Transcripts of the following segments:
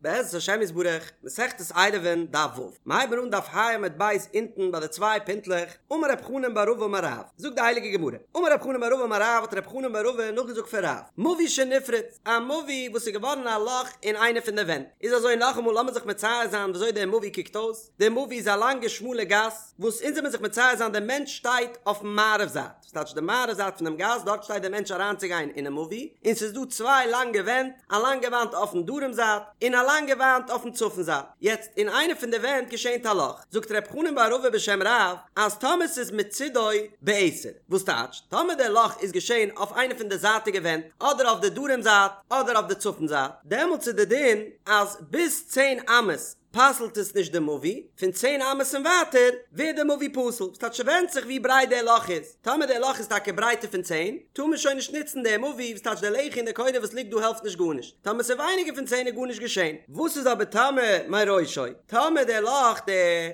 בעזרת השם יתברך, מסכת עירובין, דף ו'. מ'הייבן אן דף ה' עמוד ב' אונטן ביי די צוויי פינטלעך, אמר רב חנן בר רבא אמר רב, זאגט די הייליגע גמרא, אמר רב חנן בר רבא אמר רב האט רב חנן בר רבא נאכגעזאגט פון רב, מבוי שנפרץ, א מבוי וואס איז געווארן א לאך אין איינע פון די ווענט, איז אזוי נאכאמאל לאמיר זיך מצייר זיין וויאזוי דער מבוי קוקט אויס, דער מבוי איז א לאנגע שמאלע גאס, וואס אונז זעמיר זיך מצייר זיין דער מענטש שטייט אויפן מערב זייט, ס'טייטש די מערב זייט פונעם גאס, דארט שטייט דער מענטש אריינצוגיין אינעם מבוי, און ס'איז דא צוויי לאנגע ווענט, א לאנגע וואנט אויפן דרום זייט, און א לאנגע וואנט אויפן צפון זייט. יעצט, אין איינע פון די ווענט געשענט א לאך. זאגט ר' חנן בר רבא בשם רב, אז טאמער ס'איז מצידו בעשר, וואס טייטש, טאמער דער לאך איז געשען אויף איינע פון די זייטיגע ווענט, אדער אויף די דרום זייט, אדער אויף די צפון זייט, דעמאלטס איז די דין אז ביז צען אמות פסל'ט עס נישט די מבוי, פון צען אמות און ווייטער ווערט די מבוי פסול, ס'טייטש ס'ווענדט זיך ווי ברייט דער לאך איז, טאמער דער לאך איז טאקע ברייטער פון צען, טאר מען שוין נישט נוצן די מבוי, וואס טייטש די לחי און די קורה וואס ליגט דא העלפט נישט גארנישט, טאמער ס'איז ווייניגער פון צען איז גארנישט געשען. וואס איז אבער טאמער מראשו, טאמער דער לאך, די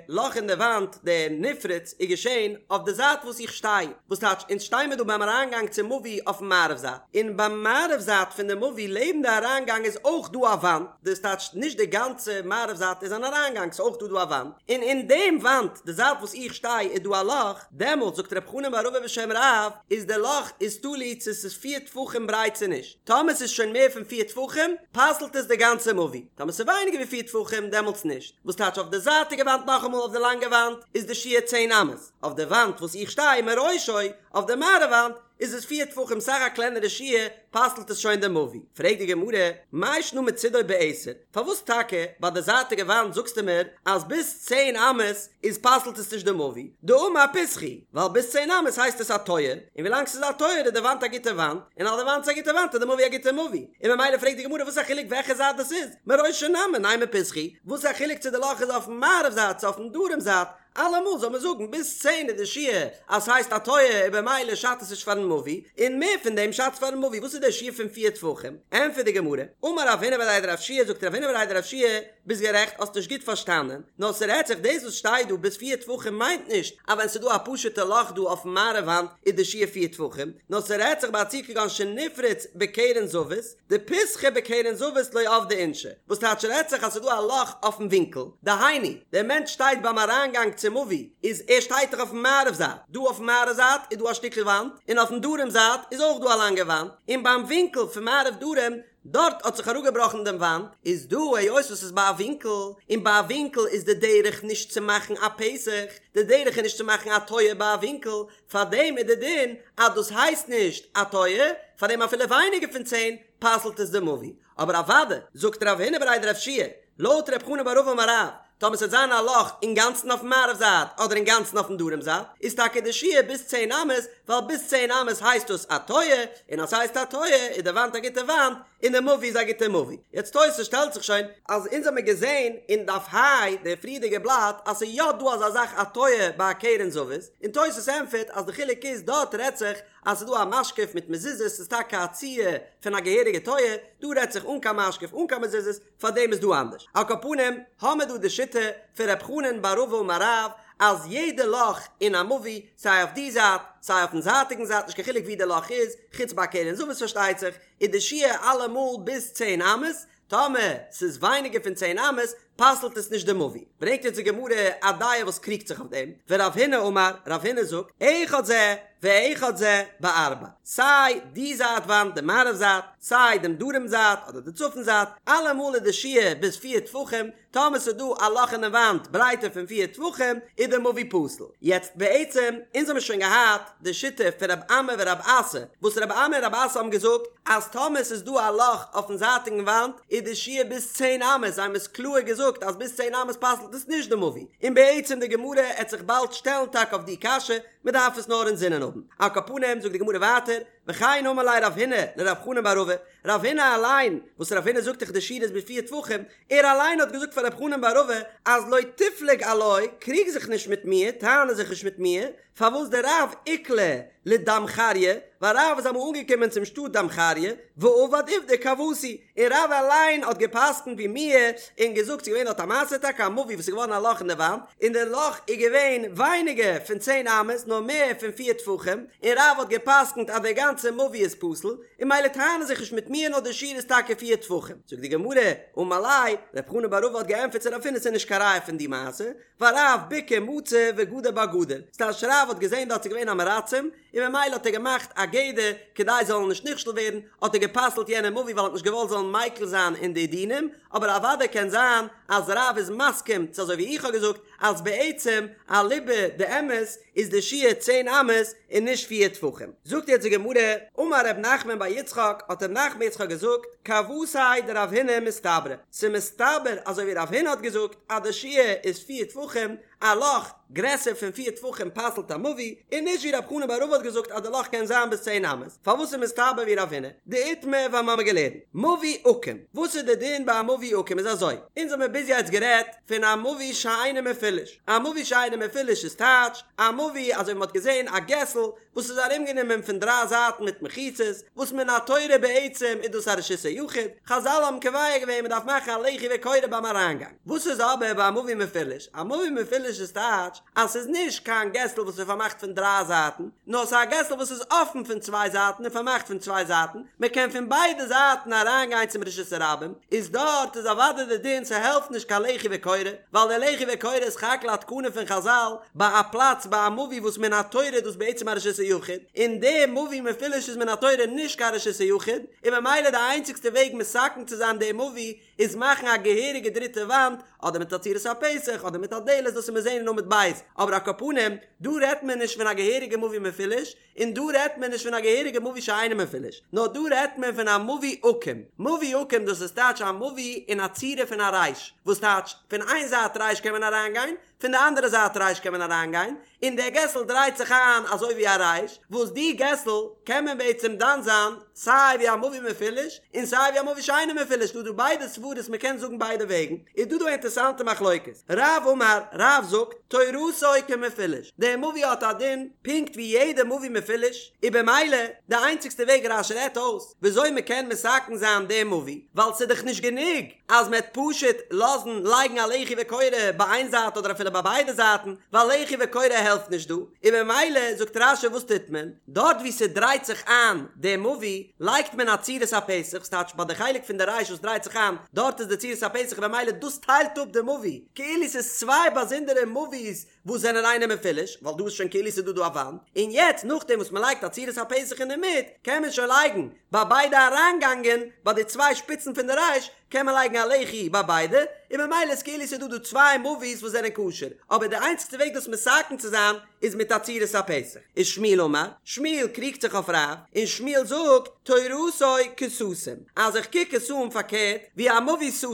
לאך אין די וואנט, די נפרץ, איז געשען אויף די זייט וואס איך שטיי, וואס טייטש אונז שטיי מיר דא ביים אריינגאנג צום מבוי אויפן מערב זייט, און ביים מערב זייט פון די מבוי לעבן די אריינגאנג איז אויך דא א וואנט, דאס טייטשט נישט די גאנצע מערב זייט איז אן אריינגאנג ס'איז אויך דא דא א וואנט, און אין דעם וואנט די זייט וואס איך שטיי איז דא א לאך, דעמאלטס זאגט ר' חנן בר רבא בשם רב איז די לאך איז תלוי צו ס'איז פיר טפחים ברייט צו נישט, טאמער ס'איז שוין מער פון פיר טפחים פסל'ט עס די גאנצע מבוי, טאמער ס'איז ווייניגער ווי פיר טפחים דעמאלטס נישט, וואס טייטש אויף די זייטיגע וואנט נאכאמאל אויף די לאנגע וואנט איז די שיעור צען אמות, אויף די וואנט וואס איך שטיי מראשו אויף די מערב וואנט איז עס פיר טפחים סאך א קלענערע שיעור פסל'ט עס שוין די מבוי. פרעגט די גמרא, מאי שנא מצידו בעשר, פארוואס טאקע ביי די זייטיגע וואנט זאגסטו מיר אז ביז צען אמות איז פסל'ט עס נישט די מבוי, דאמר פתחא הוא, ווייל ביז צען אמות הייסט עס א טויער, און ווילאנג ס'איז א טויער איז די וואנט א גוטע וואנט, און אז די וואנט איז א גוטע וואנט איז די מבוי א גוטע מבוי, און ממילא פרעגט די גמרא וואס א חילוק וועלכע זייט דאס איז, מראשו נמי נימא פתחא הוא, וואס א חילוק צו די לאך איז אויפן מערב זייט צו אויפן דרום זייט, אלעמאל זאל מען זאגן ביז צען איז די שיעור אז ס'הייסט א טויער און במילא שאדט עס נישט פארן מבוי, און מער פון דעם שאדט פארן מבוי, וואס איז דער שיעור פון פיר טפחים? ענטפערט די גמרא, אמר רב הונא בריה דרב יהושע זאגט רב הונא בריה דרב יהושע, ביסט גערעכט האסט נישט גוט פארשטאנען, נאר ס'רעדט זיך דאס וואס שטייט דא ביז פיר טפחים מיינט נישט אז ווען ס'איז דא א פשוטע לאך דא אויפן מערב וואנט איז די שיעור פיר טפחים, נאר ס'רעדט זיך ביי א ציור כגון שנפרץ בקרן זווית, דפתחא בקרן זווית לא עבדי אינשי, וואס טייטש רעדט זיך אז ס'איז דא א לאך אויפן ווינקל, דהיינו, דער מענטש שטייט ביים אריינגאנג צום מבוי, איז ער שטייט דאך אויפן מערב זייט, דא אויפן מערב זייט איז דא א שטיקל וואנט, און אויפן דרום זייט איז אויך דא א לאנגע וואנט, און ביים ווינקל פון מערב דרום, דארט האט זיך אראפגעבראכן דעם וואנט, איז דא היות וואס ס'איז ביי א ווינקל, און ביי א ווינקל איז די דרך נישט צו מאכן א פתח, די דרך איז נישט צו מאכן א טויער ביי א ווינקל, פאר דעם איז די דין אז דאס הייסט נישט א טויער, פאר דעם אפילו ווייניגער פון צען פסל'ט עס די מבוי. אבער אוודאי, זאגט רב הונא בריה דרב יהושע, לויט רב חנן בר רבא אמר רב, טאמער ס'וועט זיין א לאך אינגאנצן אויפן מערב זייט אדער אינגאנצן אויפן דרום זייט, איז טאקע די שיעור ביז צען אמות, ווייל ביז צען אמות הייסט דאס א טויער, און אז ס'הייסט א טויער איז די וואנט א גוטע וואנט, און די מבוי איז א גוטע מבוי. יעצט תוס' שטעלט זיך שוין אז אונז האמיר געזען אין דף ה' די פריערדיגע בלאט אז ס'איז יא דא אזא זאך א טויער ביי א קרן זווית, און תוס' ענטפערט אז די חילוק איז דארט רעדט זיך אז ס'איז דא א משקוף מיט מזוזות ס'איז טאקע א ציור פון א געהעריגע טויער, דא רעדט זיך אן קיין משקוף אן קיין מזוזות פארדעם איז דא אנדערש. על כל פנים האמיר דא די שיטה פון ר' חנן בר רבא אמר רב אז יעדע לאך אין א מבוי סיי אויף די זייט סיי אויפן זייטיגן זייט נישט קיין חילוק ווי די לאך איז, חוץ ביי א קרן זווית פארשטייט זיך, איז די שיעור אלעמאל ביז צען אמות, טאמער ס'איז ווייניגער פון צען אמות פסל'ט עס נישט די מבוי. ברענגט אונז די גמרא א דעה וואס קריגט זיך אויף דעם, ורב הונא אמר, רב הונא זאגט, אחד זה ואחד זה בארבע, סיי די זייט וואנט די מערב זייט, סיי דעם דרום זייט אדער די צפון זייט, אלעמאל איז די שיעור ביז פיר טפחים, טאמער ס'איז דא א לאך אינעם וואנט ברייטער פון פיר טפחים איז די מבוי פסול. יעצט בעצם, אונז האמיר שוין געהאט די שיטה פון רב אמי ורב אסי, וואס רב אמי און רב אסי האבן געזאגט אז טאמער ס'איז דא א לאך אויפן זייטיגן וואנט איז די שיעור ביז צען אמות, זיי האבן עס קלאהר געזאגט אז ביז צען אמות פסל'ט עס נישט די מבוי, און בעצם די גמרא עט זיך באלד שטעלן טאקע אויף די קשיא, מ'דארף עס נאר אינזינען האבן. על כל פנים זאגט די גמרא ווייטער, וכן אמר ליה רב הונא לרב חנן בר רבא, רב הונא אליין, וואס רב הונא זאגט דאך די שיעור איז ביז פיר טפחים, ער אליין האט געזאגט פאר רב חנן בר רבא אז לא תפלוג עילאי, קריג זיך נישט מיט מיר, טענה זיך נישט מיט מיר, פארוואס דרב איקלע לדמחריא, ווייל רב איז אמאל אנגעקומען צום שטאט דמחריא, ועבד עובדא כוותי, און רב אליין האט גע'פסק'נט ווי מיר, און געזאגט ס'איז געווען דארט א מעשה טאקע א מבוי וואס איז געווארן א לאך אין די וואנט, און די לאך איז געווען ווייניגער פון צען אמות נאר מער פון פיר טפחים, און רב האט גע'פסק'נט אז די גאנצע. גאנצע מבוי איז פסול, און ממילא טענה זיך נישט מיט מיר נאר די שיעור איז טאקע פיר טפחים. זאגט די גמרא, אמר ליה, רב חנן בר רבא האט געענטפערט צו רב הונא ס'איז נישט קיין ראיה פון די מעשה, ווייל רב בקעה מצא וגדר בה גדר, ס'טייטש רב האט געזען דארט ס'איז געווען עם הארצים, און ממילא האט ער געמאכט א גדר כדי זיי זאלן נישט נכשל ווערן, האט ער גע'פסל'ט יענע מבוי ווייל ער האט נישט געוואלט זאלן מיקל זיין אין די דינים, אבער אוודאי קען זיין אז רב איז מסכים צו אזוי ווי איך האב געזאגט אז בעצם אליבא דאמת איז די שיעור צען אמות און נישט פיר טפחים. זאגט יעצט די גמרא, אמר ר' נחמן בר יצחק, האט ר' נחמן בר יצחק געזאגט, כוותיה דרב הונא מסתברא, ס'מסתבר אזוי ווי רב הונא האט געזאגט אז די שיעור איז פיר טפחים, א לאך גרעסער פון פיר טפחים פסל'ט א מבוי, און נישט ווי רב חנן בר רבא האט געזאגט אז די לאך קען זיין ביז צען אמות, פארוואס איז מסתבר ווי רב הונא? דאיתמר ווייל מ'האמיר געלערנט מבוי עקום, וואס איז די דין ביי א מבוי עקום איז אזוי, אונז האמיר ביז יעצט גערעדט פון א מבוי שאינו מפולש, א מבוי שאינו מפולש איז טייטש א מבוי אזוי ווי מ'האט געזען א געסל וואס איז ארומגענומען פון דריי זייטן מיט מחיצות, וואס מן התורה בעצם איז דאס א רשות היחיד, חזל האבן קובע געווען מ'דארף מאכן א לחי וקורה ביים אריינגאנג. וואס איז אבער ביי א מבוי מפולש? א מבוי מפולש איז טייטש אז ס'איז נישט קיין געסל וואס איז פארמאכט פון דריי זייטן, נאר ס'איז א געסל וואס איז אפן פון צוויי זייטן און פארמאכט פון צוויי זייטן, מ'קען פון ביידע זייטן אריינגיין צום רשות הרבים, איז דארט איז אוודאי די דין ס'העלפט נישט קיין לחי וקורה, ווייל די לחי וקורה איז סך הכל א תקנה פון חזל ביי א פלאץ ביי א מבוי וואס מן התורה איז דאס בעצם א רשות היחיד, און די מבוי מפולש איז מן התורה נישט קיין רשות היחיד, און ממילא די איינציגסטע וועג מתקן צו זיין די מבוי איז מאכן א געהעריגע דריטע וואנט, אדער מיט א צורת הפתח, אדער מיט א דלת, דאס וועט מען זעהן אין עמוד ב', אבער על כל פנים, דא רעדט מען נישט פון א געהעריגע מבוי מפולש, און דא רעדט מען נישט פון א געהעריגע מבוי שאינו מפולש, נאר דא רעדט מען פון א מבוי עקום, מבוי עקום דאס איז טייטש א מבוי אין א צורה פון א רייש, וואס טייטש, פון איין זייט רייש קען מען אריינגיין, פון די אנדערע זייט רייש קען מען אריינגיין, און דער געסל דרייט זיך איין אזוי ווי א רייש, וואס די געסל קען מען בעצם דן זיין סיי ווי א מבוי מפולש און סיי ווי א מבוי שאינו מפולש, דא דא ביידע סברות מען קען זאגן ביידע וועגן, איז דא דא א אינטערסאנטע מחלוקת, רב אמר, רב זאגט, תורתו כמפולש, דער מבוי האט א דין פונקט ווי יעדע מבוי מפולש, און במילא די איינציגסטע וועג רש"י רעדט אויס וויאזוי מען קען מתקן זיין דעם מבוי, ווייל ס'איז דאך נישט גענוג אז מען וועט פשוט לאזן לייגן א לחי וקורה ביי איין זייט אדער אפילו ביי ביידע זייטן, ווייל לחי וקורה העלפט נישט דא, און ממילא זאגט רש"י וואס טוט מען? דארט וואו ס'דרייט זיך איין די מבוי לייגט מען א צורת הפתח, ס'טייטש ביי די חלק פון די רייש וואס דרייט זיך איין, דארט איז די צורת הפתח און ממילא דאס טיילט אפ די מבוי, כאילו ס'איז צוויי באזונדערע מבוי'ס וואס זענען אינו מפולש, ווייל דא איז שוין כאילו ס'איז דא דא א וואנט, און יעצט נאכדעם וואס מ'לייגט א צורת הפתח אינדערמיט, קען מען שוין לייגן ביי ביידע אריינגאנגען, ביי די צוויי שפיצן פון די רייש, קען מען לייגן א לחי ביי ביידע, און ממילא איז כאילו ס'איז דא דא צוויי מבוי'ס וואס זענען כשר, אבער די איינציגסטע וועג דאס מתקן צו זיין איז מיט א צורת הפתח. ושמואל אמר, שמואל קריגט זיך אויף רב, און שמואל זאגט, תורתו כסתום, אז איך קוק עס אן פארקערט ווי א מבוי סתום,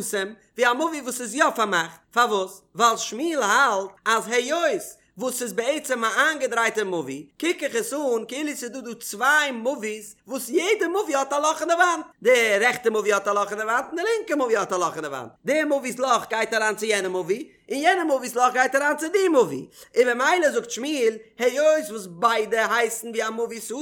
ווי א מבוי וואס איז יא פארמאכט, פארוואס? ווייל שמואל האלט אז היות וואס ס'איז בעצם א איינגעדרייטע מבוי, קוק איך עס אן כאילו ס'איז דא דא צוויי מבוי'ס וואס יעדע מבוי האט א לאך אין די וואנט, די רעכטע מבוי האט א לאך אין די וואנט און די לינקע מבוי האט א לאך אין די וואנט, די מבוי'ס לאך גייט אריין צו יענע מבוי, און יענע מבוי'ס לאך גייט אריין צו די מבוי, און ממילא זאגט שמואל, היות וואס ביידע הייסן ווי א מבוי סתום,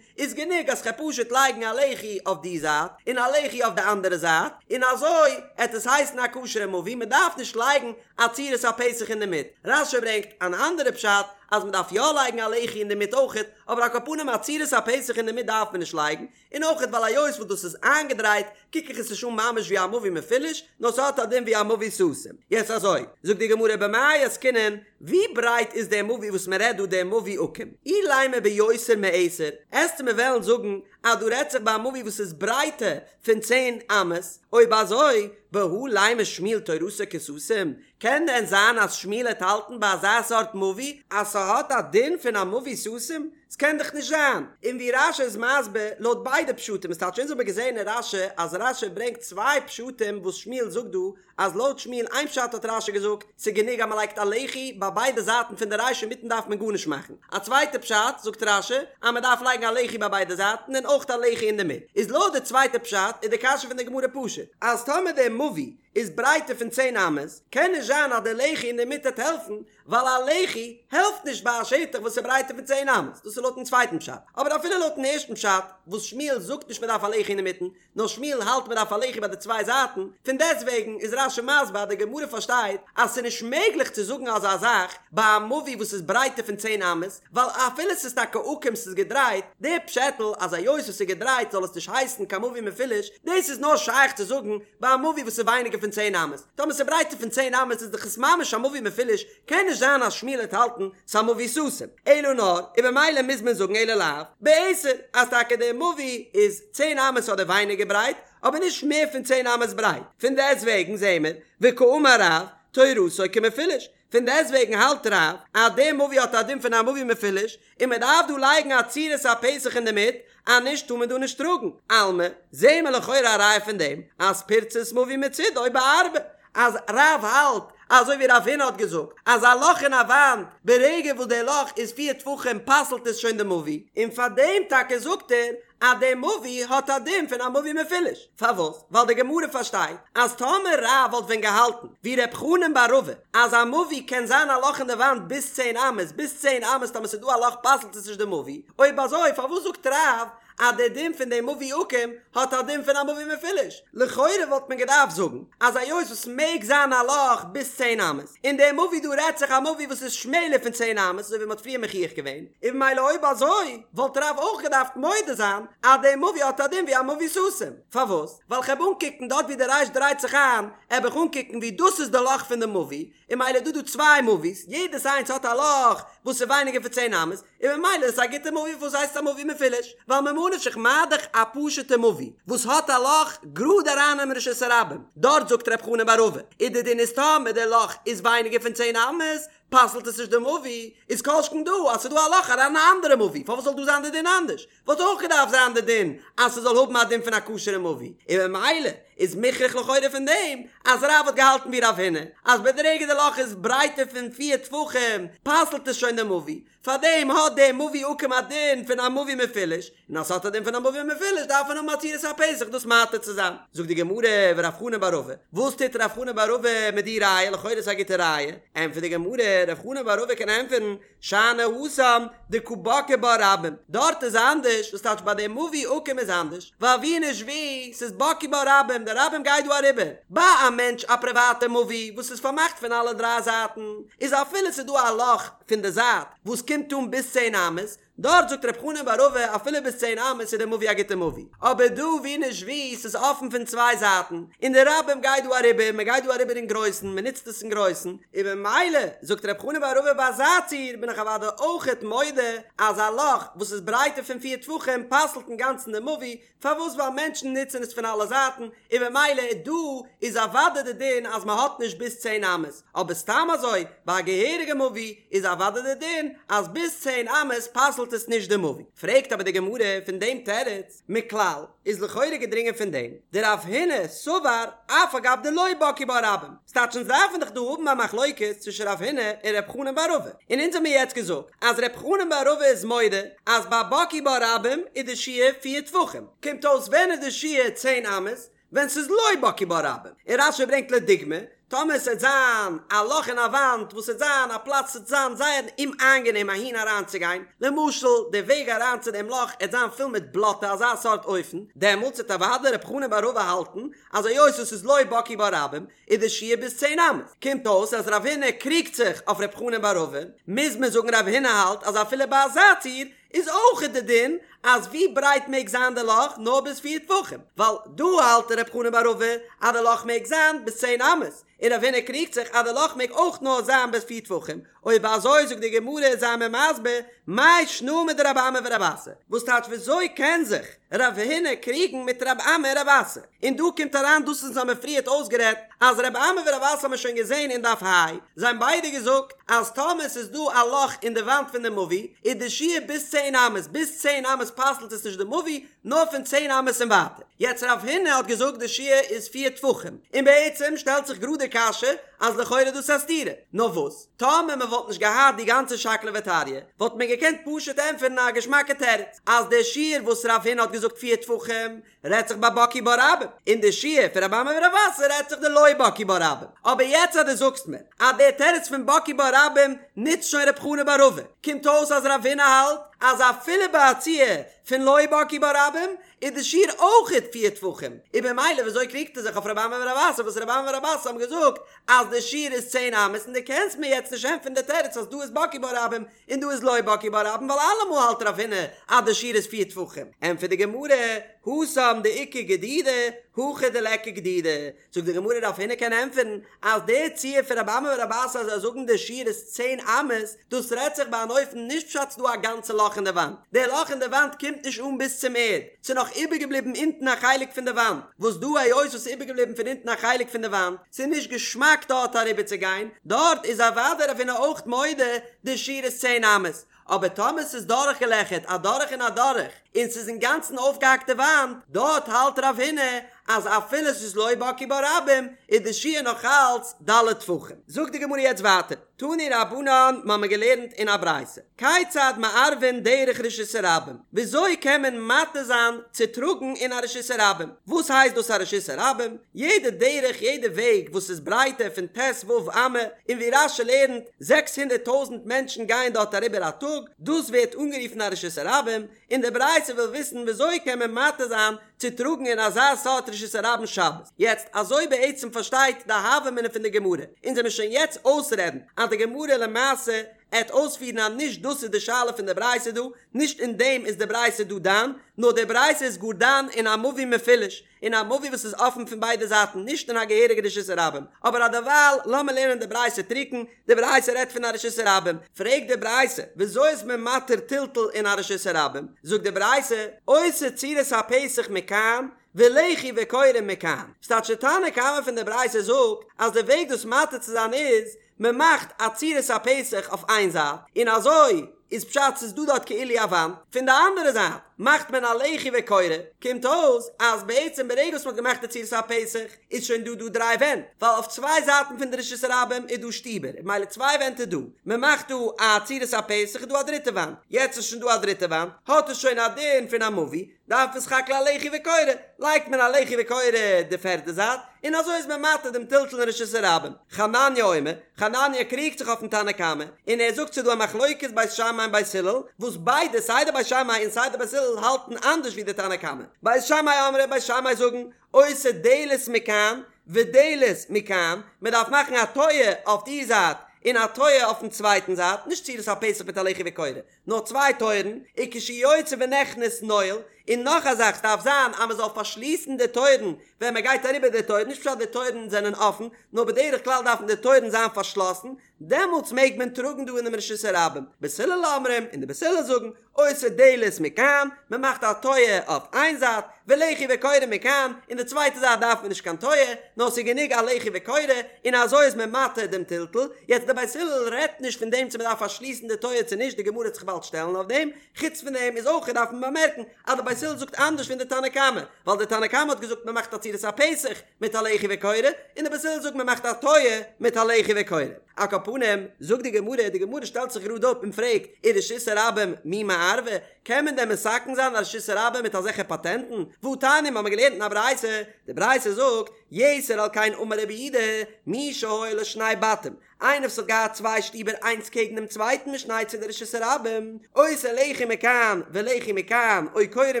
איז גענוג אז כ'על פשוט לייגן א לחי אויף די זייט און א לחי אויף די אנדערע זייט, און אזוי עט עס הייסן א כשר'ע מבוי, מ'דארף נישט לייגן א צורת הפתח אינדערמיט. רש"י ברענגט אן אנדערע פשט אז מ'דארף יא לייגן א לחי אינדערמיט אויכעט, אבער על כל פנים א צורת הפתח אינדערמיט דארף מען נישט לייגן, און אויכעט ווייל היות וואס דאס איז איינגעדרייט קוק איך עס נישט אן ממש ווי א מבוי מפולש, נאר ס'האט א דין ווי א מבוי סתום. יעצט אזוי, זאגט די גמרא במאי עסקינן, ווי ברייט איז דער מבוי וואס מען רעדט דא דער מבוי עקום? אילימא ביותר מעשר, עסטו מיר וועלן זאגן אז דא רעדט זיך ביי א מבוי וואס איז ברייטער פון צען אמות, אויב אזוי, בהא לימא שמואל תורתו כסתום, קען דען זיין אז שמואל העט האלטן ביי אזא סארט מבוי אז ס'האט א דין פון א מבוי סתום? ס'קען דאך נישט זיין. און ווי רש"י איז מסביר לויט ביידע פשטים, עס טייטש אונז האבן געזען אין רש"י אז רש"י ברענגט צוויי פשטים וואס שמואל זאגט דא אז לויט שמואל איין פשט האט רש"י געזאגט ס'איז גענוג אז מ'לייגט א לחי ביי ביידע זייטן פון די רייש אינמיטן דארף מען גארנישט מאכן, א צווייטע פשט זאגט רש"י אז מ'דארף לייגן א לחי ביי ביידע זייטן און אויך א לחי אינדערמיט. איז לויט די צווייטע פשט איז די קשיא פון די גמרא פשוט אז טאמער דער מבוי איז ברייטער פון צען אמות קען נישט זיין אז די לחי אינדערמיט העט העלפן ווייל א לחי העלפט נישט ביי א שטח וואס איז ברייטער פון צען אמות, דאס איז איז לויטן צווייטן פשט, אבער אפילו לויטן ערשטן פשט, וואס שמואל זאגט נישט מען דארף א לחי אינמיטן, נאר שמואל האלט מען דארף א לחי ביי די צוויי זייטן, פון דעסטוועגן איז רש"י מסביר אז די גמרא פארשטייט אז ס'איז נישט מעגליך צו זאגן אזא זאך ביי א מבוי וואס איז ברייטער פון צען אמות, ווייל אפילו ס'איז טאקע עקום ס'איז געדרייט, די פשעטל אז היות עס איז געדרייט זאל עס נישט הייסן קיין מבוי מפולש, דאס איז נאר שייך צו זאגן ביי א מבוי וואס איז ווייניגער פון צען אמות, טאמער ס'איז ברייטער פון צען אמות איז דאך עס ממש א מבוי מפולש, קען נישט זיין אז שמואל העט האלטן ס'א מבוי סתום, אלא נאר, און במילא מוז מען זאגן אלא לאו, בעשר, אז טאקע די מבוי איז צען אמות אדער ווייניגער ברייט, אבער נישט מער פון צען אמות ברייט, פון דעסטוועגן זעהן מיר, וקאמר רב, תורתו כמפולש, פון דעסטוועגן האלט רב אז די מבוי האט א דין פון א מבוי מפולש, און מען דארף דא לייגן א צורת הפתח אינדערמיט, אז נישט טאר מען דא נישט טראגן, אלמא, זעהן מיר לכאורה א ראיה פון דעם אז פירצת מבוי מצידו בארבע, אז רב האלט אזוי ווי רב הונא האט געזאגט אז א לאך אין א וואנט ברגע וואס די לאך איז פיר טפחים פסל'ט עס שוין די מבוי, און פאר דעם טאקע זאגט ער אז די מבוי האט א דין פון א מבוי מפולש, פארוואס? ווייל די גמרא פארשטייט אז טאמער רב וואלט ווען געהאלטן ווי ר' חנן בר רבא אז א מבוי קען זיין א לאך אין די וואנט ביז צען אמות, ביז צען אמות טאמער ס'איז דא א לאך פסל'ט עס נישט די מבוי, אויב אזוי פארוואס זאגט רב אז די דין פון די מבוי עקום האט א דין פון א מבוי מפולש? לכאורה וואלט מען געדארפט זאגן אז היות וואס מעג זיין א לאך ביז צען אמות, און די מבוי דא רעדט זיך א מבוי וואס איז שמעלער פון צען אמות אזוי ווי מ'האט פריער מוכיח געווען, און ממילא אויב אזוי וואלט רב אויך געדארפט מודה זיין אז די מבוי האט א דין ווי א מבוי סתום. פארוואס? ווייל כ'העב אנקוקן דארט ווי די ריש דרייט זיך איין, העב איך אנקוקן ווי דאס איז די לאך פון די מבוי, און ממילא איז דא דא צוויי מבוי'ס, יעדעס איינס האט א לאך וואס איז ווייניגער פון צען אמות, און ממילא איז עס א גוטע מבוי פארוואס הייסט עס א מבוי מפולש? ווייל ממה נפשך מה דאך א פשוטע מבוי וואס האט א לאך גראד אריין אין רשות הרבים, דארט זאגט ר' חנן בר רבא איז די דין איז טאמער די לאך איז ווייניגער פון צען אמות פסל'ט עס נישט די מבוי, איז כל שכן דא אז ס'איז דא א לאך אריין אין א אנדערע מבוי פארוואס זאל דא זיין די דין אנדערש? וואלט אויך געדארפט זיין די דין אז ס'זאל האבן א דין פון א כשר'ע מבוי, און ממילא איז מוכרח לכאורה פון דעם אז רב האט געהאלטן ווי רב הונא אז ברגע די לאך איז ברייטער פון פיר טפחים פסל'ט עס שוין די מבוי, פארדעם האט די מבוי עקום א דין פון א מבוי מפולש, און אז ס'האט א דין פון א מבוי מפולש דארף מען האבן א צורת הפתח דאס מתיר צו זיין. זאגט די גמרא ורב חנן בר רבא, וואס טוט רב חנן בר רבא מיט די ראיה, לכאורה איז א גוטע ראיה, ענטפערט די גמרא, רב חנן בר רבא קען ענטפערן, שאני התם דקא בקעי בה רבים, דארט איז אנדערש, וואס טייטש ביי די מבוי עקום איז אנדערש, ווייל ווי נישט ווי, ס'איז בקעי בה רבים, די רבים גייט דא אריבער, ביי א מענטש א פריוואטע מבוי וואס איז פארמאכט פון אלע דריי זייטן, איז אפילו ס'איז דא א לאך פון די זייט וואס קומט אן ביז צען אמות, דארט זאגט רב חנן בר רבא אפילו ביז צען אמות איז די מבוי א גוטע מבוי, אבער דא ווי נישט ווי ס'איז אפן פון צוויי זייטן, און די רבים גייט דא אריבער, מען גייט דא אריבער אין גרויסן, מען נוצט עס אין גרויסן, און במילא זאגט רב חנן בר רבא ביי אזא ציור בין איך אוודאי אויכעט מודה אז א לאך וואס איז ברייטער פון פיר טפחים פסל'ט אינגאנצן די מבוי, פארוואס ווייל מענטשן נוצן עס פון אלע זייטן, און במילא דא איז אוודאי די דין אז מען האט נישט ביז צען אמות, אבער סתם אזוי ביי א געהעריגע מבוי איז אוודאי די דין אז ביז צען אמות פסל'ט עס נישט די מבוי. פרעגט אבער די גמרא פון דעם תירוץ, מכלל איז לכאורה געדרינגען פון דעם דרב הונא סבר אף על גב דלא בקעי בה רבים, ס'טייטש אונז דארפן דאך דא האבן א מחלוקת צווישן רב הונא און ר' חנן בר רבא, און אונז האמיר יעצט געזאגט אז ר' חנן בר רבא איז מודה אז ביי בקעי בה רבים איז די שיעור פיר טפחים, קומט אויס ווען איז די שיעור צען אמות? ווען ס'איז לא בקעי בה רבים, און רש"י ברענגט לדוגמא, טאמער ס'עט זיין א לאך אין א וואנט וואס ס'עט זיין א פלאץ ס'עט זיין זייער אומאיינגענעם אהין אריינצוגיין, למשל די וועג אריין צו דעם לאך עט זיין פול מיט בלאטע אזא סארט אופן, דעמאלטס עט אוודאי ר' חנן בר רבא האלטן אז היות עס איז לא בקעי בה רבים איז די שיעור ביז צען אמות. קומט אויס אז רב הונא קריגט זיך אויף ר' חנן בר רבא, מוז מען זאגן רב הונא האלט אז אפילו ביי אזא ציור איז אויך די דין אז ווי ברייט מעג זיין די לאך נאר ביז פיר טפחים, ווייל דא האלט ר' חנן בר רבא אז די לאך מעג זיין ביז צען אמות, און רב הונא קריגט זיך אז די לאך מעג אויך נאר זיין ביז פיר טפחים, אויב אזוי זאגט די גמרא זיי מיר מסביר מאי שנא מדרב אמי ורב אסי, וואס טייטש וויאזוי קען זיך רב הונא קריגן מיט רב אמי און רב אסי, און דא קומט אריין דאס וואס האמיר פריערט אויסגערעדט אז רב אמי ורב אסי האמיר שוין געזען אין דף ה', זיי האבן ביידע געזאגט אז טאמער ס'איז דא א לאך אין די וואנט פון די מבוי איז די שיעור ביז צען אמות, ביז צען אמות פסל'ט עס נישט די מבוי, נאר פון צען אמות און ווייטער. יעצט רב הונא האט געזאגט די שיעור איז פיר טפחים, און בעצם שטעלט זיך גראד די קשיא אז לכאורה איז דאס א סתירה, נאר וואס טאמער מען וואלט נישט געהאט די גאנצע שקלא וטריא וואלט מען געקענט פשוט ענטפערן א געשמאקע תירוץ אז די שיעור וואס רב הונא האט געזאגט פיר טפחים רעדט זיך ביי בקעי בה רבים, און די שיעור פון רב אמי ורב אסי רעדט זיך דלא בקעי בה רבים. אבער יעצט אז דו זאגסט מיר אז דער תירוץ פון בקעי בה רבים נוצט שוין רב חנן בר רבא, קומט אויס אז רב הונא האלט אז אפילו ביי א ציור פון לא בקעו בה רבים איז די שיעור אויכעט פיר טפחים, און במילא וויאזוי קריגט ער זיך אויף רבי אמי ורבי אסי וואס רבי אמי ורבי אסי האבן געזאגט אז די שיעור איז צען אמות און דו קענסט מיר יעצט נישט ענטפערן די תירוץ אז דא איז בקעו בה רבים און דא איז לא בקעו בה רבים ווייל אלעמאל האלט רב הונא אז די שיעור איז פיר טפחים, ענטפערט די גמרא, התם דאיכא גדידי, הכא דליכא גדידי, זאגט די גמרא רב הונא קען ענטפערן אז די ציור פון רבי אמי ורבי אסי אז זיי זאגן די שיעור איז צען אמות, דאס רעדט זיך ביי אן אופן נישט פשט ס'דא א גאנצע לאך אין די וואנט, די לאך אין די וואנט קומט נישט אן ביז צום ערד, ס'איז נאך איבערגעבליבן אונטן א חלק פון די וואנט, וואס דא היות וואס ס'איז איבערגעבליבן פון אונטן א חלק פון די וואנט, ס'איז נישט געשמאק דארט אריבערצוגיין, דארט איז אוודאי רב הונא אויך מודה די שיעור איז צען אמות, אבער טאמער ס'איז דורכגעלעכערט א דורך און א דורך, און ס'איז אינגאנצן אויפגעהאקט די וואנט, דארט האלט רב הונא אז אפילו ס'איז לא בקעו בה רבים, איז די שיעור נאך אלץ ד' טפחים. זאגט די גמרא יעצט ווייטער, תנו רבנן, מ'האמיר געלערנט אין א ברייתא, כיצד מערבין דרך רשות הרבים, וויאזוי קען מען מתיר זיין צו טראגן אין א רשות הרבים? וואס הייסט דאס א רשות הרבים? יעדע דרך, יעדע וועג וואס איז ברייטער פון ט"ו אמה, און ווי רש"י לערנט, זעקס הונדערט טויזנט מענטשן גייען דארט אריבער א טאג, דאס ווערט אנגערופן א רשות הרבים, און די ברייתא וויל וויסן וויאזוי קען מען מתיר זיין צו טראגן אין אזא סארט רשות הרבים שבת. יעצט, אזוי בעצם פארשטייט די הוה אמינא פון די גמרא, אונז וועמיר שוין יעצט אויסרעדן אז די גמרא למעשה עט אויספירן אז נישט דאס איז די שאלה פון די ברייתא דא, נישט אין דעם איז די ברייתא דא דן, נאר די ברייתא איז גאר דן אין א מבוי מפולש, אין א מבוי וואס איז אפן פון ביידע זייטן, נישט אין א געהעריגע רשות הרבים. אבער אדערווייל לאמיר לערנען די ברייתא טרוקן, די ברייתא רעדט פון א רשות הרבים, פרעגט די ברייתא, וויאזוי איז מען מתיר טלטול אין א רשות הרבים? זאגט די ברייתא, עושה צורת הפתח מכאן, ולחי וקורה מכאן. ס'טייטש די תנא קמא פון די ברייתא זאגט אז די וועג דאס מתיר צו זיין איז, מען מאכט א צורת הפתח אויף איין זייט, און אזוי איז פשט ס'איז דא דארט כאילו א וואנט, פון די אנדערע זייט מאכט מען א לחי וקורה, קומט אויס אז בעצם ברגע וואס מ'האט געמאכט די צורת הפתח איז שוין דא דא דריי ווענט, ווייל אויף צוויי זייטן פון די רשות הרבים איז דא שטיבער, און ממילא צוויי ווענט איז דא, מען מאכט דא א צורת הפתח איז דא א דריטע וואנט, יעצט איז שוין דא א דריטע וואנט, האט עס שוין א דין פון א מבוי, דארף מען סך הכל א לחי וקורה, לייגט מען א לחי וקורה די פערדע זייט, און אזוי איז מען מתיר דעם טלטול אין רשות הרבים. חנניה אומר, חנניה קריגט זיך אויפן תנא קמא, און ער זאגט ס'איז דא א מחלוקת בית שמאי און בית הלל, וואס ביידע סיי די בית שמאי און סיי די בית הלל האלטן אנדערש ווי די תנא קמא. בית שמאי אמרי, בית שמאי זאגן, עושה דלת מכאן ודלת מכאן, מען דארף מאכן א טויער אויף די זייט און א טויער אויפן צווייטן זייט, נישט צורת הפתח מיט א לחי וקורה, נאר צוויי טויערן, וכשיוצא ונכנס נועל, און נאך א זאך ס'דארף זיין אז מ'זאל פארשליסן די טויערן ווען מ'גייט אריבער די טויערן, נישט פשט די טויערן זענען אפן, נאר בדרך כלל דארפן די טויערן זיין פארשלאסן, דעמאלטס מעג מען טראגן דא אינעם רשות הרבים. בית הלל אומרים, און די בית הלל זאגן, עושה דלת מכאן, מ'מאכט א טויער אויף איין זייט, ולחי וקורה מכאן, און די צווייטע זייט דארף מען נישט קיין טויער, נאר ס'איז גענוג א לחי וקורה, און אזוי איז מען מתיר דעם טלטול, יעצט די בית הלל רעדט נישט פון דעם צו מען דארף פארשליסן די טויער צו נישט, די גמרא וועט זיך באלד שטעלן אויף דעם, חוץ פון דעם איז אויך דארף מען באמערקן אז די בית הלל זאגט אנדערש פון די תנא קמא, ווייל די תנא קמא האט געזאגט מען מאכט א צורת הפתח מיט א לחי וקורה, און די בית הלל זאגט מען מאכט א טויער מיט א לחי וקורה. על כל פנים, זאגט די גמרא, די גמרא שטעלט זיך גראד אפ און פרעגט, ורשות הרבים מי מערבא, קען מען דען מתקן זיין א רשות הרבים מיט אזעלכע פאטענטן? והתניא, מ'האמיר געלערנט אין א ברייתא, די ברייתא זאגט, יתר על כן אמר רבי יהודה, מי שהיו לו שני בתים, איינער וואס האט געהאט צוויי שטיבער איינס קעגן דעם צווייטן משני צידי רשות הרבים, עושה לחי מכאן ולחי מכאן, או קורה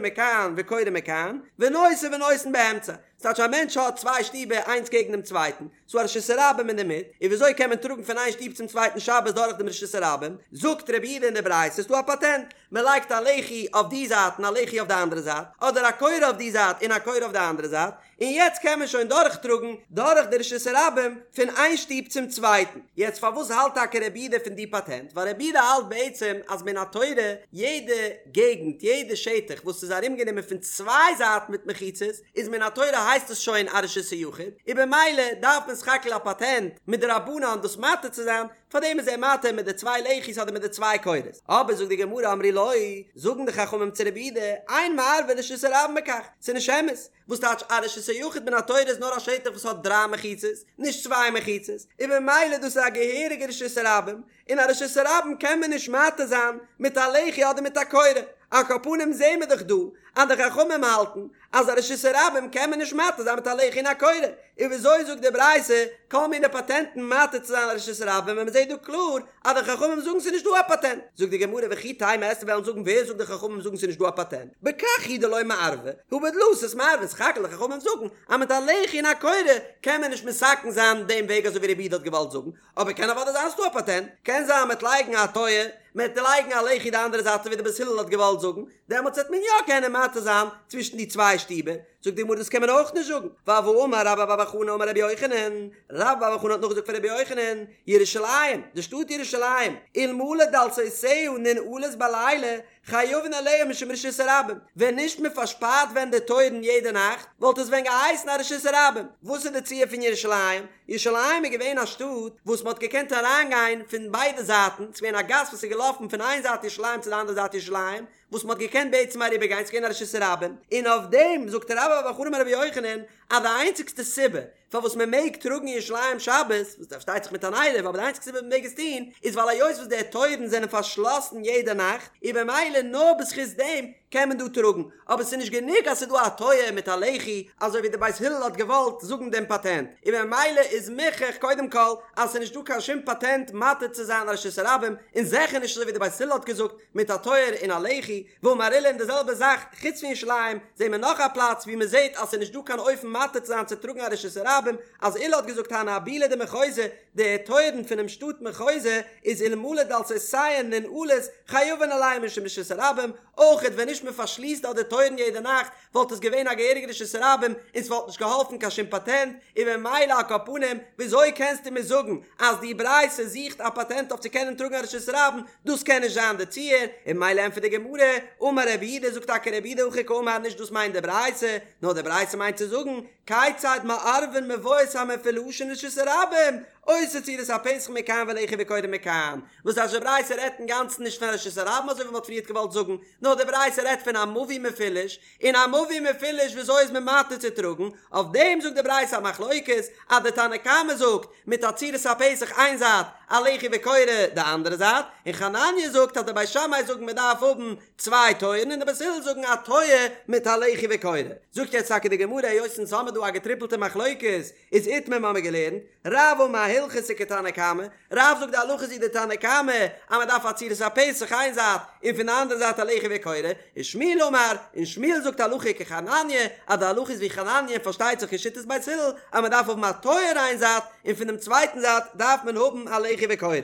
מכאן וקורה מכאן, ונושא ונותן באמצע. ס'טייטש א מענטש האט צוויי שטיבער איינס קעגן דעם צווייטן, ס'דא א רשות הרבים אינדערמיט, און וויאזוי קען מען טראגן פון איין שטוב צום צווייטן שבת דורך דעם רשות הרבים? זאגט רבי יהודה אין די ברייתא ס'איז דא א פאטענט, מען לייגט א לחי אויף די זייט און א לחי אויף די אנדערע זייט, אדער א קורה אויף די זייט און א קורה אויף די אנדערע זייט, און יעצט קען מען שוין דורכטראגן דורך די רשות הרבים פון איין שטוב צום צווייטן. יעצט פארוואס האלט טאקע רבי יהודה פון די פאטענט? ווייל רבי יהודה האלט בעצם אז מן התורה יעדע געגנט, יעדע שטח וואס איז ארומגענומען פון צוויי זייטן מיט מחיצות, איז מן התורה הייסט עס שוין א רשות היחיד, און במילא דארף מען סך הכל א פאטענט מדרבנן דאס מתיר צו זיין, פארדעם איז ער מתיר מיט די צוויי לחי'ס אדער מיט די צוויי קורות. אבער זאגט די גמרא אמרו לו, זאגן די חכמים צו רבי יהודה, אין מערבין רשות הרבים בכך, ס'איז נישט אמת, וואס טייטש א רשות היחיד מן התורה איז נאר א שטח וואס האט דריי מחיצות, נישט צוויי מחיצות, און במילא דאס איז א געהעריגע רשות הרבים, און א רשות הרבים קען מען נישט מתיר זיין מיט א לחי אדער מיט א קורה, על כל פנים זעהן מיר דאך דא אז די חכמים האלטן אז א רשות הרבים קען מען נישט מתיר זיין מיט א לחי און א קורה, און וויאזוי זאגט די ברייתא כל מיני פאטענטן מתיר צו זיין א רשות הרבים ווען מ'זעט דא קלאר אז די חכמים זאגן ס'איז נישט דא א פאטענט? זאגט די גמרא וכי תימא וועסטו וועלן זאגן ווער זאגט די חכמים זאגן ס'איז נישט דא א פאטענט? בכך הוא דלא מערבי הא בדלתות מערבי סך הכל די חכמים זאגן אז מיט א לחי און א קורה קען מען נישט מתקן זיין דעם וועג אזוי ווי רבי יהודה האט געוואלט זאגן, אבער קען אוודאי זיין ס'דא א פאטענט, קען זיין מ'עט לייגן א טויער, מ'עט לייגן א לחי די אנדערע זייט אזוי ווי די בית הלל האט געוואלט זאגן, דעמאלטס וועט מען יא קענען מתיר זיין צווישן די צוויי שטיבער, זאגט די גמרא דאס קען מען אויך נישט זאגן, ווייל והאמר רבה בר בר חנה אמר רבי יוחנן, רבה בר בר חנה האט נאכגעזאגט פון רבי יוחנן, ירושלים, די שטאט ירושלים, אלמלא דלתותיה ננעלות בלילה, חייבין עליה משום רשות הרבים, ווען נישט מען פארשפארט ווען די טויערן יעדע נאכט, וואלט עס ווען געהייסן א רשות הרבים. וואס איז די ציור פון ירושלים? ירושלים איז געווען א שטאט וואס מען האט געקענט אריינגיין פון ביידע זייטן, ס'איז געווען א גאס וואס איז געלאפן פון איין זייט ירושלים צו די אנדערע זייט ירושלים, וואס מען האט געקענט בעצם אריבערגיין, ס'איז געווען א רשות הרבים, און אויף דעם זאגט רבה בר בר חנה אמר רבי יוחנן אז די איינציגסטע סיבה פארוואס מען מעג טראגן אין ירושלים שבת, וואס פארשטייט זיך מיט אן עירוב, אבער די איינציגסטע סיבה מען מעג עס טון, איז ווייל היות וואס די טויערן זענען פארשלאסן יעדע נאכט, און במילא נאר בזכות דעם קען מען דא טראגן, אבער ס'איז נישט גענוג אז ס'איז דא א טויער מיט א לחי, אזוי ווי די בית הלל האט געוואלט זאגן דעם פאטענט, און במילא איז מוכח קודם כל אז ס'איז נישט דא קיין שום פאטענט מתיר צו זיין א רשות הרבים, און זיכער נישט אזוי ווי די בית הלל האט געזאגט מיט א טויער און א לחי, ואמר עולא און די זעלבע זאך חוץ פון ירושלים זעהן מיר נאך א פלאץ ווי מען זעהט אז ס'איז נישט דא קיין אופן מתיר צו זיין צו טראגן א רשות הרבים אז עולא האט געזאגט הני אבולי דמחוזא די טויערן פונעם שטאט מחוזא איז אלמלא דלתותיהן ננעלות חייבין עליהן משום רשות הרבים אויכעט ווען נישט מען פארשליסט דארט די טויערן יעדע נאכט וואלט עס געווען א געהעריגע רשות הרבים און ס'וואלט נישט געהאלפן קיין שום פאטענט, און ממילא על כל פנים וויאזוי קענסטו מיר זאגן אז די ברייתא זוכט א פאטענט אויף צו קענען טראגן א רשות הרבים, דאס קען נישט זיין די ציור, און ממילא ענטפערט די גמרא, אמר רב יהודה זאגט טאקע רב יהודה הכי קאמר נישט דאס מיינט די ברייתא, נאר די ברייתא מיינט צו זאגן, כיצד מערבין מבואות המפולשין לרשות הרבים, עושה צורת הפתח מכאן ולחי וקורה מכאן, וואס אז די ברייתא רעדט אינגאנצן נישט פון רשות הרבים אזוי ווי מ'האט פריערט געוואלט זאגן, נאר די ברייתא רעדט פון א מבוי מפולש, און א מבוי מפולש וויאזוי איז מען מתיר צו טראגן, אויף דעם זאגט די ברייתא א מחלוקת, אז די תנא קמא זאגט, מיט א צורת הפתח איין זייט, א לחי וקורה די אנדערע זייט, און חנניה זאגט אז די בית שמאי זאגן מען דארף האבן צוויי טויערן און די בית הלל זאגן א טויער מיט א לחי וקורה. זאגט יעצט טאקע די גמרא היות אונז האמיר דא א געטריפלטע מחלוקת, איז איתמר מיר האבן געלערנט, רב אמר הלכתא כתנא קמא, רב זאגט די הלכה איז ווי די תנא קמא אז מען דארף א צורת הפתח איין זייט און פון די אנדערע זייט א לחי וקורה, ושמואל אמר, און שמואל זאגט הלכה כחנניה, אז די הלכה איז ווי חנניה און פארשטייט זיך כשיטת בית הלל אז מען דארף האבן א טויער איין זייט און פון דעם צווייטן זייט דארף מען האבן א לחי וקורה.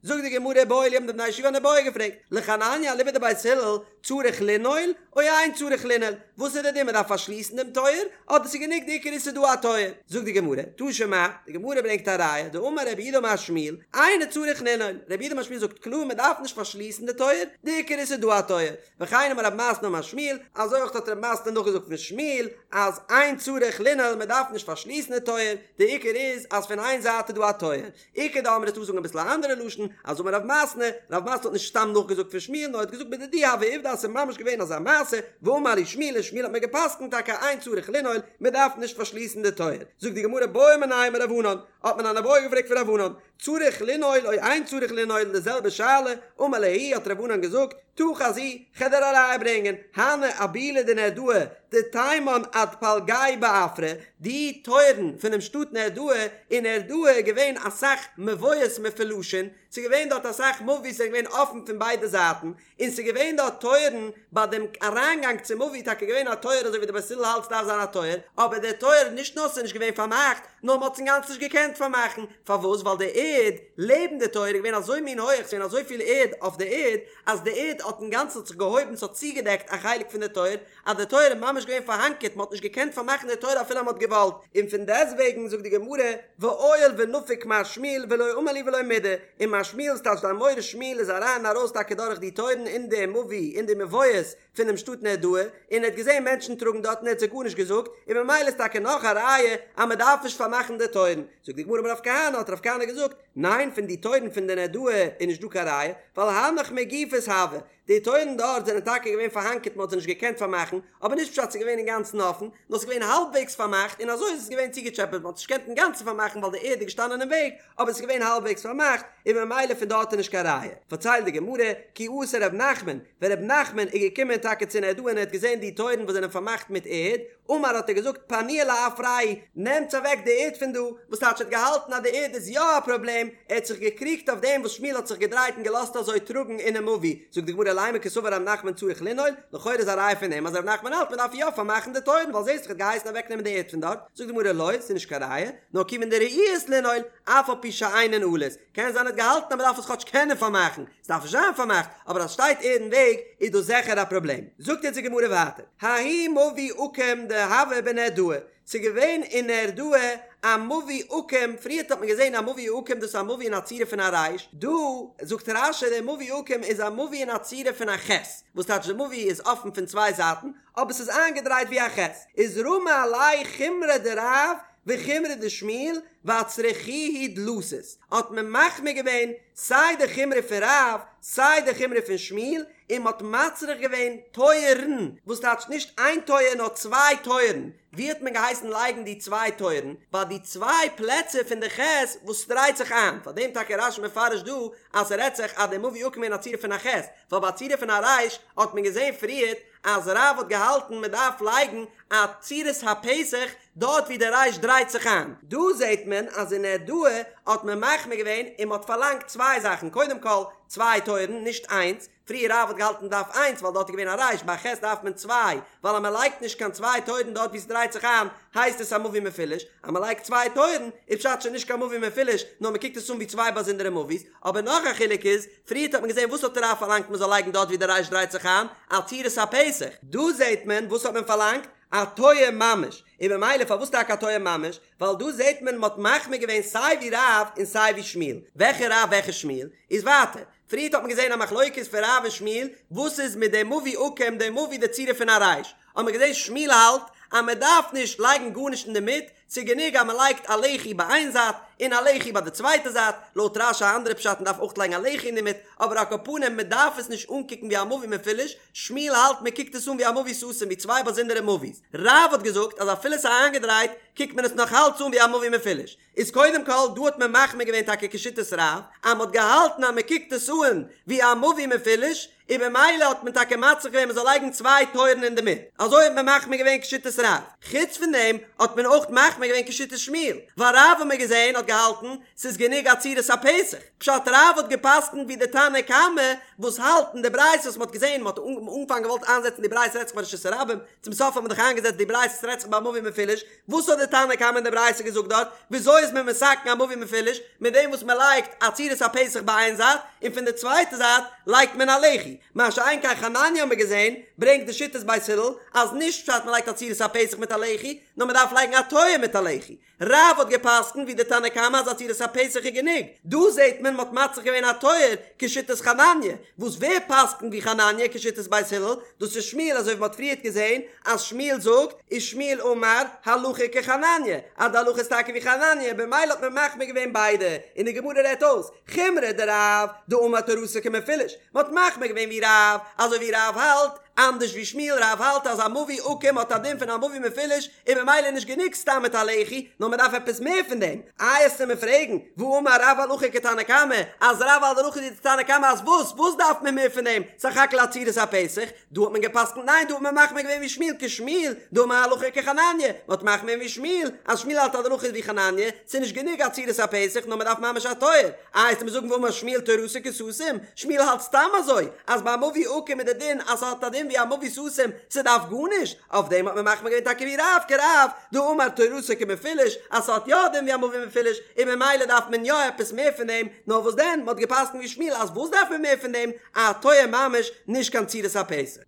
זאגט די גמרא איבעיא להו האבן די בני ישיבה אן איבעיא געפרעגט, לחנניה אליבא דבית הלל צריך לנעול או אין צריך לנעול, וואס איז די דין מען דארף פארשליסן דעם טויער אדער ס'איז גענוג די עיקר איז ס'איז דא א טויער, זאגט די גמרא, תא שמע, די גמרא ברענגט א ראיה, דאמר רב יהודה אמר שמואל, אינו צריך לנעול, רב יהודה אמר שמואל זאגט קלאר מען דארף נישט פארשליסן די טויער, די עיקר איז ס'איז דא א טויער, וכן אמר רב מתנא אמר שמואל, אזוי אויך האט רב מתנא נאכגעזאגט פון שמואל אז אין צריך לנעול מען דארף נישט פארשליסן די טויער, די עיקר איז אז פון איין זייט איז דא א טויער, איכא דאמרי ס'דא זאגן אביסל א אנדערע לשון, אז אמר רב מתנא, רב מתנא האט נישט סתם נאכגעזאגט פון שמואל נאר ער האט געזאגט בדידי הוה עובדא אז ס'איז ממש געווען אזא מעשה, ואמר לי שמואל און שמואל האט מיר גע'פסק'נט טאקע אין צריך לנעול, מען דארף נישט פארשליסן די טויער. זאגט די גמרא בעו מיניה מרב ענן, האט מען אן איבעיא געפרעגט פון רב ענן, צריך לנעול או אין צריך לנעול די זעלבע שאלה, אמר להו האט רב ענן געזאגט, תא חזי, כ'על דיר א ראיה ברענגען, הני אבולי דנהרדעא, דתימן עד פלגיה בעפרא, די טויערן פונעם שטאט נהרדעא, אין נהרדעא איז געווען אסאך מבואות מפולשין, ס'איז געווען דארט אסאך מבואות זענען געווען אפן פון ביידע זייטן, און ס'איז געווען דארט טויערן, ביי דעם אריינגאנג צום מבוי איז טאקע געווען א טויער אזוי ווי די בית הלל האלט ס'דארף זיין א טויער, אבער דער טויער נישט נאר ס'איז נישט געווען פארמאכט, נאר מ'האט עס אינגאנצן נישט געקענט פארמאכן, פארוואס? ווייל די ערד לעבן די טויער איז געווען אזוי מין הויעך, ס'איז געווען אזויפיל ערד אויף די ערד, אז די ערד האט אינגאנצן האט זיך געהויבן, ס'האט צוגעדעקט א חלק פון די טויער, אז די טויער איז ממש געווען פארהאנקערט, מ'האט נישט געקענט פארמאכן די טויער אפילו אז מ'האט געוואלט, און פון דעסטוועגן זאגט די גמרא, ועייל ונפיק מר שמואל ולא אמר להו ולא מידי, און מר שמואל ס'טייטש די אמורא שמואל איז אריין און ארויס טאקע דורך די טויערן אין די מבוי אין די מבואות פונעם שטאט נהרדעא, און ער האט געזען מענטשן טראגן דארט און ער האט זיי גארנישט געזאגט, און ממילא איז טאקע נאך א ראיה אז מ'דארף נישט פארמאכן די טויערן. זאגט די גמרא אמר רב כהנא, האט רב כהנא געזאגט, ניין פון די טויערן פון די נהרדעא איז נישט דא קיין ראיה, ווייל הנך מגופות הוו, די טויערן דארט זענען טאקע געווען פארהאנקערט מען האט זיי נישט געקענט פארמאכן, אבער נישט פשט ס'איז געווען אינגאנצן אפן, נאר ס'איז געווען האלבוועגס פארמאכט און אזוי איז עס געווען צוגעטשעפעט מען האט נישט געקענט אינגאנצן פארמאכן ווייל די ערד איז געשטאנען אין וועג, אבער עס איז געווען האלבוועגס פארמאכט און ממילא פון דארט איז נישט קיין ראיה. פארציילט די גמרא, כי אתא ר' נחמן, ווען ר' נחמן איז געקומען טאקע צו נהרדעא און ער האט געזען די טויערן וואס זענען פארמאכט מיט ערד, אמר האט ער געזאגט פנוהו לעפרייהו, נעמטס אוועק די ערד פון דא, וואס טייטש ער האט געהאלטן אז די ערד איז יא א פראבלעם, ער האט זיך געקריגט אויף דעם וואס שמואל האט זיך געדרייט און געלאזט אזוי טראגן אינעם מבוי, זאגט די גמרא לימא קסבר ר' נחמן צריך לנעול, לכאורה איז א ראיה פון דעם אז ר' נחמן האלט מען דארף יא פארמאכן די טויערן ווייל זעסט דאך ער האט געהייסן אוועקנעמען די ערד פון דארט, זאגט די גמרא לא, ס'איז נישט קיין ראיה, נאר כיוון דראויות לנעול, אף על פי שאינן נעולות, קען זיין ער האט געהאלטן אז מען דארף עס כאטש קענען פארמאכן, עס דארף נישט זיין פארמאכט, אבער אז שטייט ערד אין וועג איז דאס זיכער א פראבלעם. זאגט יעצט די גמרא ווייטער, ההוא מבוי עקום דהוה בנהרדעא, ס'איז געווען אין נהרדעא א מבוי עקום, פריערט האט מען געזען א מבוי עקום דאס איז א מבוי אין א צורה פון א רייש, דא זאגט רש"י דער מבוי עקום איז א מבוי אין א צורה פון א ח', וואס טייטש די מבוי איז אפן פון צוויי זייטן, אבער ס'איז איינגעדרייט ווי א ח', איז רמו עליה חומרא דרב וחומרא דשמואל ואצרכוהו דלתות, האט מען מחמיר געווען סיי די חומרא פון רב סיי די חומרא פון שמואל, און מ'האט מצריך געווען טויערן, וואס טייטש נישט איין טויער נאר צוויי טויערן, ווי האט מען געהייסן לייגן די צוויי טויערן? ביי די צוויי פלעצער פון די ח' וואס דרייט זיך איין, פאר דעם טאקע רש"י מפרש דא אז ס'רעדט זיך אז די מבוי עקום אין א צורה פון א ח', ווייל ביי א צורה פון א רייש האט מען געזען פריערט אז רב האט געהאלטן מען דארף לייגן א צורת הפתח דארט ווי די רייש דרייט זיך איין. דא זעט מען אז אין נהרדעא האט מען מחמיר געווען און מען האט פארלאנגט צוויי זאכן קודם כל צוויי טויערן נישט איינס, פריער רב האט געהאלטן מען דארף איינס ווייל דארט איז געווען א רייש ביי א ח' דארף מען צוויי ווייל אז מען לייגט נישט קיין צוויי טויערן דארט ווי ס'דרייט זיך איין הייסט עס א מבוי מפולש, אז מען לייגט צוויי טויערן איז פשט שוין נישט קיין מבוי מפולש נאר מען קוקט עס אן ווי צוויי באזונדערע מבוי'ס, אבער נאך א חילוק איז, פריערט האט מען געזען וואס האט רב פארלאנגט מען זאל לייגן דארט ווי די רייש דרייט זיך איין, א צורת הפתח, דא זעט מען וואס האט מען פארלאנגט, א טויער ממש, און במילא פארוואס טאקע א טויער ממש, ווייל דא זעט מען מען האט מחמיר געווען סיי ווי רב און סיי ווי שמואל, וועלכע רב וועלכע שמואל, איז ווייטער, פריערט האט מען געזען א מחלוקת פון רב און שמואל, וואס איז מיט די מבוי עקום די מבוי די צורה פון א רייש, האט מען געזען שמואל האלט אז מען דארף נישט לייגן גארנישט אינדערמיט, ס'איז גענוג אז מען לייגט א לחי ביי איין זייט און א לחי ביי די צווייטע זייט, לויט רש"י א אנדערע פשט מען דארף אויך לייגן א לחי אינדערמיט, אבער על כל פנים מען דארף עס נישט אנקוקן ווי א מבוי מפולש, שמואל האלט מען קוקט עס אן ווי א מבוי סתום ווי צוויי באזונדערע מבוי'ס, רב האט געזאגט אז אפילו ס'איז איינגעדרייט קוקט מען עס נאך אלץ אן ווי א מבוי מפולש, איז קודם כל דא האט מען מחמיר געווען טאקע כשיטת רב אז מען האט געהאלטן אז מען קוקט עס אן ווי א מבוי מפולש, און במילא האט מען טאקע מצריך געווען מען זאל לייגן צוויי טויערן אינדערמיט, אזוי האט מען מחמיר געווען כשיטת רב, חוץ פון דעם האט מען אויך מחמיר געווען כשיטת שמואל, ווייל רב האט מען געזען האט געהאלטן ס'איז גענוג א צורת הפתח, פשט רב האט געפסקנט ווי די תנא קמא וואס האלט אין די ברייתא וואס מען האט געזען מען האט אנפאנג געוואלט איינזעצן די ברייתא רעדט זיך ביי רשות הרבים, צום סוף האט מען דאך איינגעזעצט די ברייתא ס'רעדט זיך ביי מבוי מפולש, וואס האט די תנא קמא אין די ברייתא געזאגט דארט? וויאזוי איז מען מתקן א מבוי מפולש? מיט דעם וואס מען לייגט א צורת הפתח ביי איין זייט, און פון די צווייטע זייט לייגט מען א לחי. מה שאין כן חנניה האט מען געזען, ברענגט די שיטת בית הלל, אז נישט פשט מען לייגט א צורת הפתח מיט א לחי, נאר מען דארף לייגן א טויער מיט א לחי. רב האט געפסקנט ווי די תנא קמא אז א צורת הפתח איז גענוג. דא זעט מען מען האט מצריך געווען א טויער כשיטת חנניה, וואס ווער פסקנט ווי חנניה כשיטת בית הלל? דאס איז שמואל אזוי ווי מען האט פריערט געזען אז שמואל זאגט ושמואל אמר הלכה כחנניה אז די הלכה איז טאקע ווי חנניה במילא האט מען מחמיר געווען ביידע און די גמרא רעדט אויס חומרא דרב דאמר תורתו כמפולש מען האט מחמיר געווען ווי רב אזוי ווי רב האלט אנדערש ווי שמואל רב האלט אז א מבוי עקום האט א דין פון א מבוי מפולש און במילא איז נישט גענוג סתם מיט א לחי נאר מען דארף עפעס מער פון דעם איי עסטו מיר פרעגן והאמר רב הלכה כתנא קמא אז רב האלט די הלכה ווי די תנא קמא אז וואס וואס דארף מען מער פון דעם סך הכל א צורת הפתח דא האט מען געפסקנט ניין דא האט מען מחמיר געווען ווי שמואל כשמואל דאמר הלכה כחנניה, מען האט מחמיר געווען ווי שמואל אז שמואל האלט אז די הלכה איז ווי חנניה, ס'איז נישט גענוג א צורת הפתח נאר מען דארף ממש א טויער, איי עסטו מיר זאגן והאמר שמואל תורתו כסתום, שמואל האלט סתם אזוי אז ביי א מבוי עקום איז די דין אז ס'האט א דין ווי א מבוי סתום ס'דארף גארנישט, אויף דעם האט מען מחמיר געווען טאקע ווי רב כרב דאמר תורתו כמפולש אז ס'האט יא א דין ווי א מבוי מפולש און ממילא דארף מען יא עפעס מער פון דעם, נאר וואס דען מען האט געפסקנט ווי שמואל אז וואס דארף מען מער פון דעם א טויער ממש נישט קיין צורת הפתח.